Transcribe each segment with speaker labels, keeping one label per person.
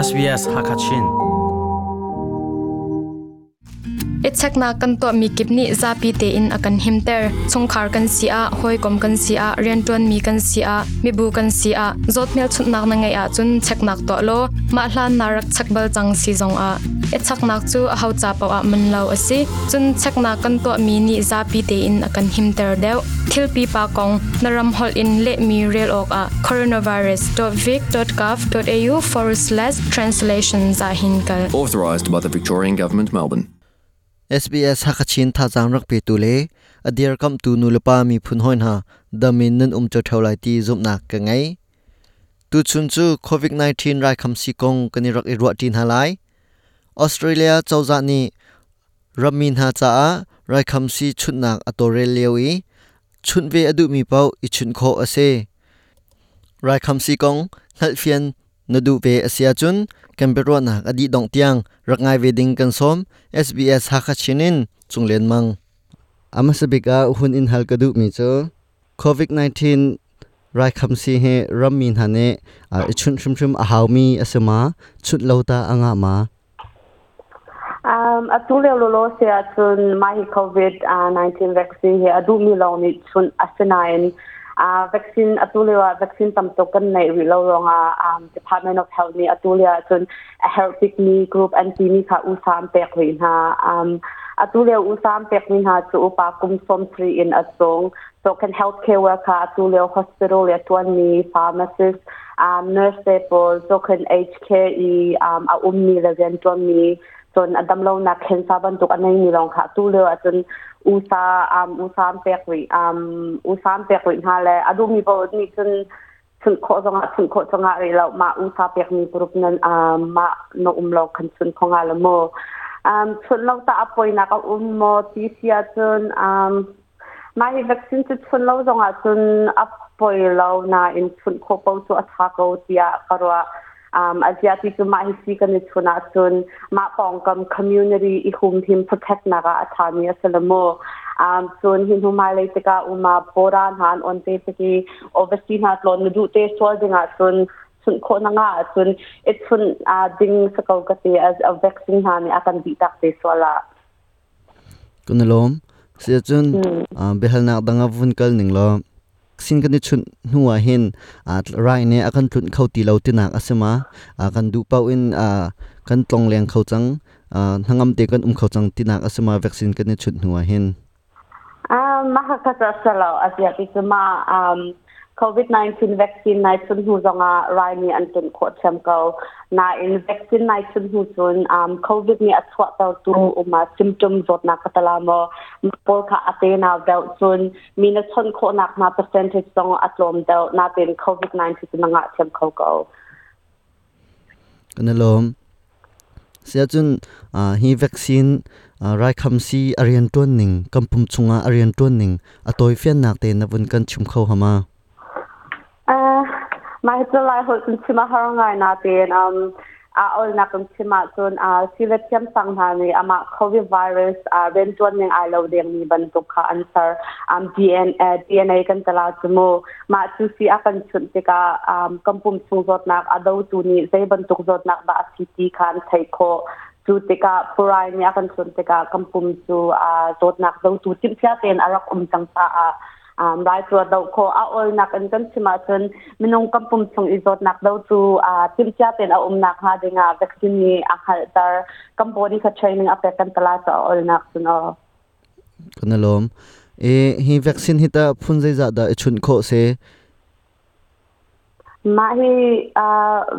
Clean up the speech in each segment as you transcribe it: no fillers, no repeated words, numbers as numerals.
Speaker 1: SBS Hakachin.
Speaker 2: I cheknak kan tuahmi kip nih zapi tein a kan himter. Chungkhar kan si ah, hawikom kan si ah, rianṭuanmi kan si ah, mibu kan si ah, zawt hmelchunhnak na ngeih ahcun cheknak tuah law mah hlan na rak chek bal cang si zong ah i cheknak cu aho ca paoh ah man lo a si. Cun cheknak kan tuahmi nih zapi tein a kan himter deuh. Thil pipa kong na ram holh in lehmi rel awkah coronavirus.vic.gov.au forward slash translation za hin kal.
Speaker 3: Authorised by the Victorian Government, Melbourne.
Speaker 4: SBS Hakachin thazaang rak petu le a dirkamhtu nulepa miphun hawi hna dam in nan um cio lai ti zumhnak ka ngei. Tuchun cu COVID-19 raikhamsi kong kan i rak i ruah ṭi hna lai. Australia cozah nih rammi hna caah raikhamsi chunhnak a tawlrel lio i chunh ve a duhmi paoh i chunh khawh a si. Raikhamsi kong hngalhfian na duh ve a si ahcun kan biaruahnak a dih dongh tiang rak ngai ve ding kan sawm. SBS Hakha Chin in Cunglian Mang. A hmasa bik ah hun in hal ka duhmi cu COVID-19 raikhamsi hi rammi hna nih i chunh hrimhrim a haumi a si ma? Chunh lo ta a ngah ma?
Speaker 5: Atu lio lawlaw si ahcun mah hi COVID-19 vaccine hi a duhmi lawng nih chunh a si nain vaccine atu lio ah vaccine tam tuk kan neih rih lo ruangah Department of Health nih atu lio ahcun a herh bikmi group an timi kha usa an pek rih hna. Atu lio usa an pekmi hna cu upa kum 70 in a cung so kan healthcare worker atu lio hospital le tuanmi pharmacist nurse te pawl so kan aged care i a ummi le riantuanmi cun a damlonak cancer bantuk a neimi lawng kha tu lio ahcun usa usa an pek rih usa an pek rih hna le a duhmi paoh nih cun chunh khawh zongah chunh khawh zongah rih lo mah usa pekmi group nan mah na um lo khan chunh kho nga lo mu chunh lo ta a poinak a um maw ti si ahcun mah hi vaccine cu chunh lo zongah cun a poi lo nain chunh khawh paoh cu a ṭha ko tiah ka ruah. A zia ti cu mah hi si kan i chun ahcun mah pawngkam community i humhim protect nak ah a ṭhami a si lo mu. Cun hi hnu hmailei tikah uma pawra hna an on te tik i overseas hna tlawn na duh te sual ding ahcun chunh khawh na ngah ahcun i chunh ding si ko ka ti as a vaccine hna nih a kan dih tak te sual ah.
Speaker 4: Kan i lawm. Siahcun biahalnak dang ah vun kal ning law sin kan i chunh hnu ah hin rai nih a kan tlunh kho ti lo tinak a si ma? Kan duh paoh in kan tlong leng kho cang, hnangam te kan um kho cang tinak a si ma vaccine kan i chunh hnu ah hin?
Speaker 5: Mah kha cu a si lo. A zia ti cu ma COVID-19 vaccine nai chun hnu zongah rai nih an tun khawh ṭhiam ko. Nain vaccine nai chun hnu cun COVID nih a chuahtertu uma symptom zawtnak ka tala maw pawl kha a te nau deuh cun mi na chawnh khawhnak hna percentage zong a tlawm deuh. Nain COVID-19 cu na ngah ṭhiam kho ko.
Speaker 4: Kan i lawm. Siahcun hi vaccine raikhamsi a rianṭuan ning, kan pum chungah a rianṭuan ning a tawifiannak te na vun kan chim kho hama?
Speaker 5: Mah hi cu Lai holh cun chim a har ngai nain a olnak kan chim ahcun sile thiamsang hna nih amah COVID virus rianṭuan ning ai lo dengmi bantuk kha an ser. DNA, DNA kan tala cu mu. Mah cu si a kan chunh tikah kan pum chung zawtnak a dotu nih zei bantuk zawtnak dah a si ti kha an theih khawh. Cu tikah phurai nih a kan chunh tikah kan pum cu zawtnak dotu timhcia tein a rak um cang caah rai cu a doh khawh. A awlnak in kan chim ahcun minung kan pum chung i zawtnak dotu timhcia tein a um nakhnga dingah vaccine nih a hngalhter. Kan body kha training a pek kan tala cu a awlnak cun aw.
Speaker 4: Kan i lawm. E, hi vaccine hi tah phun zeizah dah i chunh khawh si?
Speaker 5: Mah hi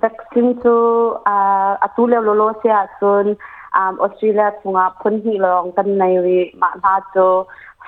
Speaker 5: vaccine cu atu lio lawlaw si ahcun Australia chungah phun hnih lawng kan nei rih. Mah hna cu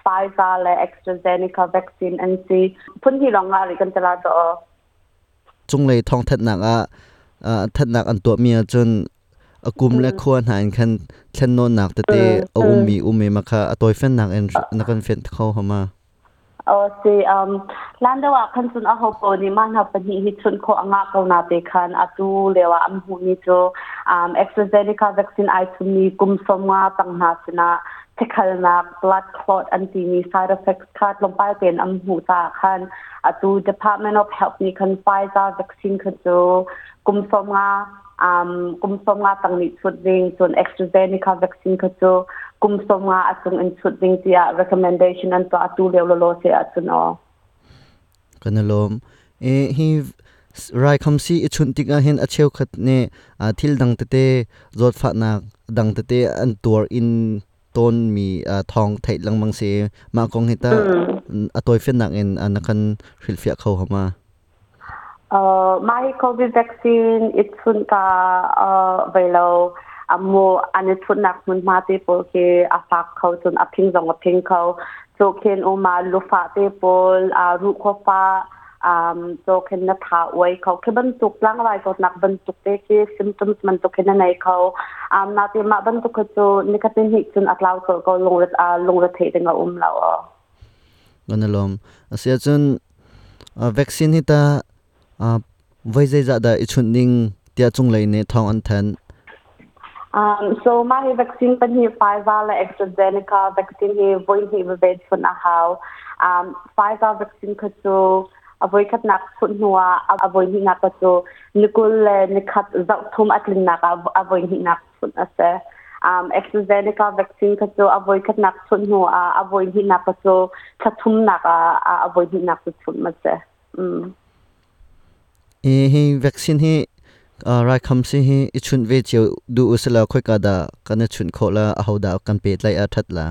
Speaker 5: Pfizer le AstraZeneca vaccine an si. Phun hnih lawng ngah rih kan ti la cu.
Speaker 4: Cunglei thawngthanhnak ah thanhnak an tuahmi ahcun a kum le khua hna in khan thlennawnnak tete a ummi um i mah kha a tawifennak in na kan fenh kho hama?
Speaker 5: Aw si hlan deuh ah khan cun aho paoh nih mah hna pahnih hi chunh khawh a ngah ko na te khan atu lio ah an hmuhmi cu AstraZeneca vaccine ai chunmi kum 50 tang hna sinah thikhalnak blood clot an timi side effects kha tlawmpal tein an hmuh caah khan atu Department of Health nih khan Pfizer vaccine kha cu kum 50 Kum 15 tang nih chut ding, cun AstraZeneca vaccine kha cu kum 15 a cung in chut ding tiah recommendation an tuah atu lio lolo se ahcun aw.
Speaker 4: Kan lawm. E hi rai khamsi i chunh tikah hin a cheukhat nih thil dang tete, zawtfahnak dang tete an tuar in tawn mi thawng theih lengmang si. Mah kong hi ta a tawifiannak in na kan hrilhfiah kho hama?
Speaker 5: Mah hi COVID vaccine i chunh ka vei lo amu an i chunhnak hmunhma te pawl khi a fak kho, cun a phing zong a phing kho. Cu khin uma lufah te pawl, ruhkhua fah, so khin na tha uai kho khi bantuk, tlangrai zawtnak bantuk te khi symptoms bantuk khi na nei kho. Na te mah bantuk kha cu nikhatin hnih cun a tlau colh ko, lungre theih ding a um lo.
Speaker 4: Kan lawm. Asia cun vaccine hi ta voi zeizah dah i chunh ding tiah cunglei nih thawng an thanh?
Speaker 5: So mah hi vaccine pahnih, Pfizer le AstraZeneca vaccine hi voi hnih veve chunh a hau. Pfizer vaccine kha cu a voi khatnak chunh hnu ah a voi hnihnak kha cu ni 21 zarh thum a tlinnak ah a voi hnihnak chunh a si. AstraZeneca vaccine kha cu a voi khatnak chunh hnu ah a voi hnihnak kha cu thla thumnak ah a voi hnihnak cu chunh a si.
Speaker 4: E hi vaccine hi, raikhamsi hi i chunh ve cio duh usila khoika dah kan i chunh khawh la, aho dah kan pehtlaih a that la?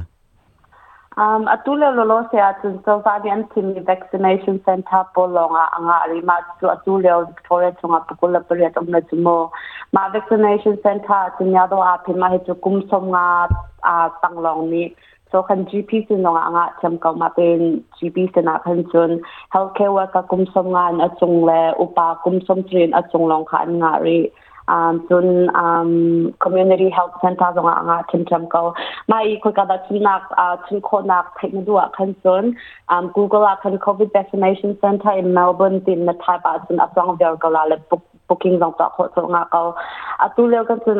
Speaker 5: Atu le lolo se ahcun cozah nih an thimmi vaccination center pawl lawng ah a ngah rih. Mah cu atu lio Victoria chungah 28 um le cu mu. Mah vaccination center ahcun yado aa phin. Mah hi cu kum 15 tang lawng nih, so khan GP sin zong ah a ngah thiam ko. Mah tein GP sin ah khan cun healthcare worker kum 50 in a cung le upa kum 60 in a cung lawng kha an ngah rih. Cun community health center zong ah a ngah ṭhiamṭhiam ko. Mah i khoika dah chunnak chun khawhnak theih na duh ah khan cun Google ah khan COVID vaccination center in Melbourne tin na type ahcun a chuang viar ko la le booking zong tuah khawh cu nga ko. Atu lio kan cun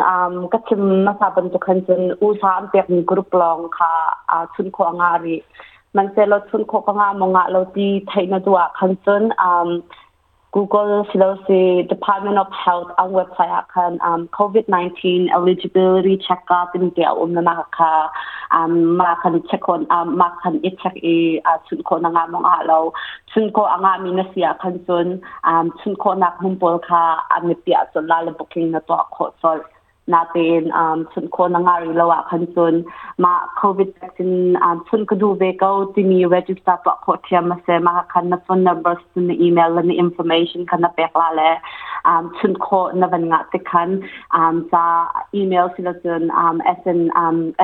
Speaker 5: ka chim hmasa bantuk khan cun USA an pekmi group lawng kha chun khawh nga rih. Mansehlaw chun khawh ka nga maw ngah lo ti theih na duh ah khan cun Google silosi Department of Health an website ah khan COVID-19 eligibility check-up tin te a um na ma kha ma khan check on ma khan i check i chun kho na nga mong a lo. Chun ko anga mi na sia khan cun chun kho nak hmun pawl kha an pia chun la le booking na tuah khawh chol. Natein chun kho na nga ri lo ah khan cun mah COVID vaccine chun ka duh ve ko timi register tuah khawh thiam a si. Mah khan na phone number, na email le na information kha na pek la le chun khawh na van ngah tik khan ca email silo cun SN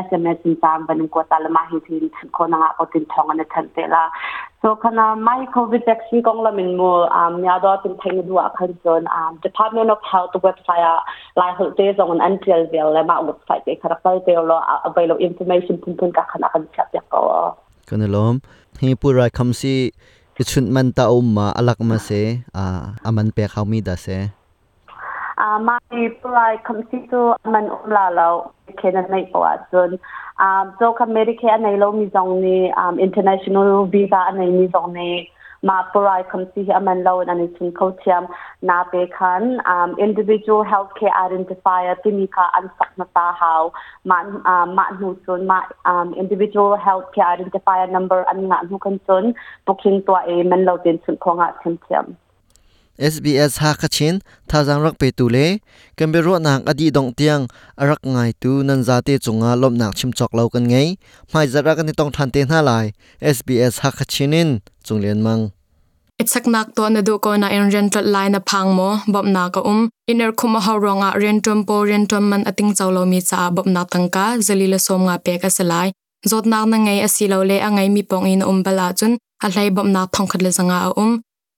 Speaker 5: SMS in ca van in kuat ta le mah hi tin chun khawh na ngah ko tin thong an than te la. So kana mai COVID vaccine kong lamin mu nya do tin thai na du ah khan cun Department of Health website ah Lai holh te zong in an tial vel le mah website te kha rak kal te lo, available information phunphun ka khan a kan chiah piak ko.
Speaker 4: Kan i lawm. Hi pu rai kham si i chunh man ta um ma alak ma se, aman pek hau mi da se?
Speaker 5: Ma hi pu rai kham si cu aman um la lo khe na nei po ahcun. So kha Medicare a nei lo mi zong nih, international visa a nei mi zong nih ma purai khamsi hi aman lo in an i chun kho thiam. Na pe khan individual healthcare identifier timi kha an sak hmasa hau. Ma mah hnu cun ma individual healthcare identifier number an ngah hnu kan cun booking tuah i man lo ten chun kho ngah thiam thiam.
Speaker 4: SBS Hakachin thazaang rak petu le kan biaruahnak a dih dongh tiang a rak ngaitu nan zate cungah lawmhnak chim cawk lo kan ngei. Hmaizarh ah kan i tong ṭhan te hna lai. SBS Hakachin in Cung Lian Mang.
Speaker 2: Icheknak tuah na duh ko nain rian tlolh lai na phang maw? Bawmhnak a um. Inn khum a hau ruangah rianṭuan pawl rianṭuan man a tingco lomi caah bawmhnak tangka 150 pek a si lai. Zawtnak na ngei asilole a ngeimi pawng i na um bal ahcun a hlei bawmhnak 1,100 a um.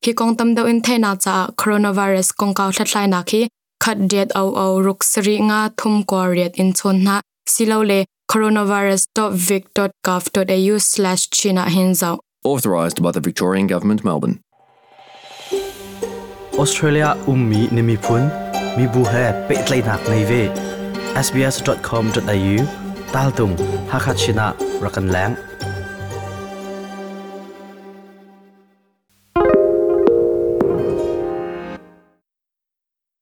Speaker 2: Hi kong tam deuh in theihnak caah coronavirus kongkau hlathlainak hi 1 800 673 39 in chawn hna silole coronavirus.vic.gov.au/chin ah hin zoh.
Speaker 3: Authorised by the Victorian Government, Melbourne.
Speaker 1: Australia ummi na miphun mibu he pehtlaihnak nei ve. sbs.com.au tal tung Hakachin ah rak kan leng.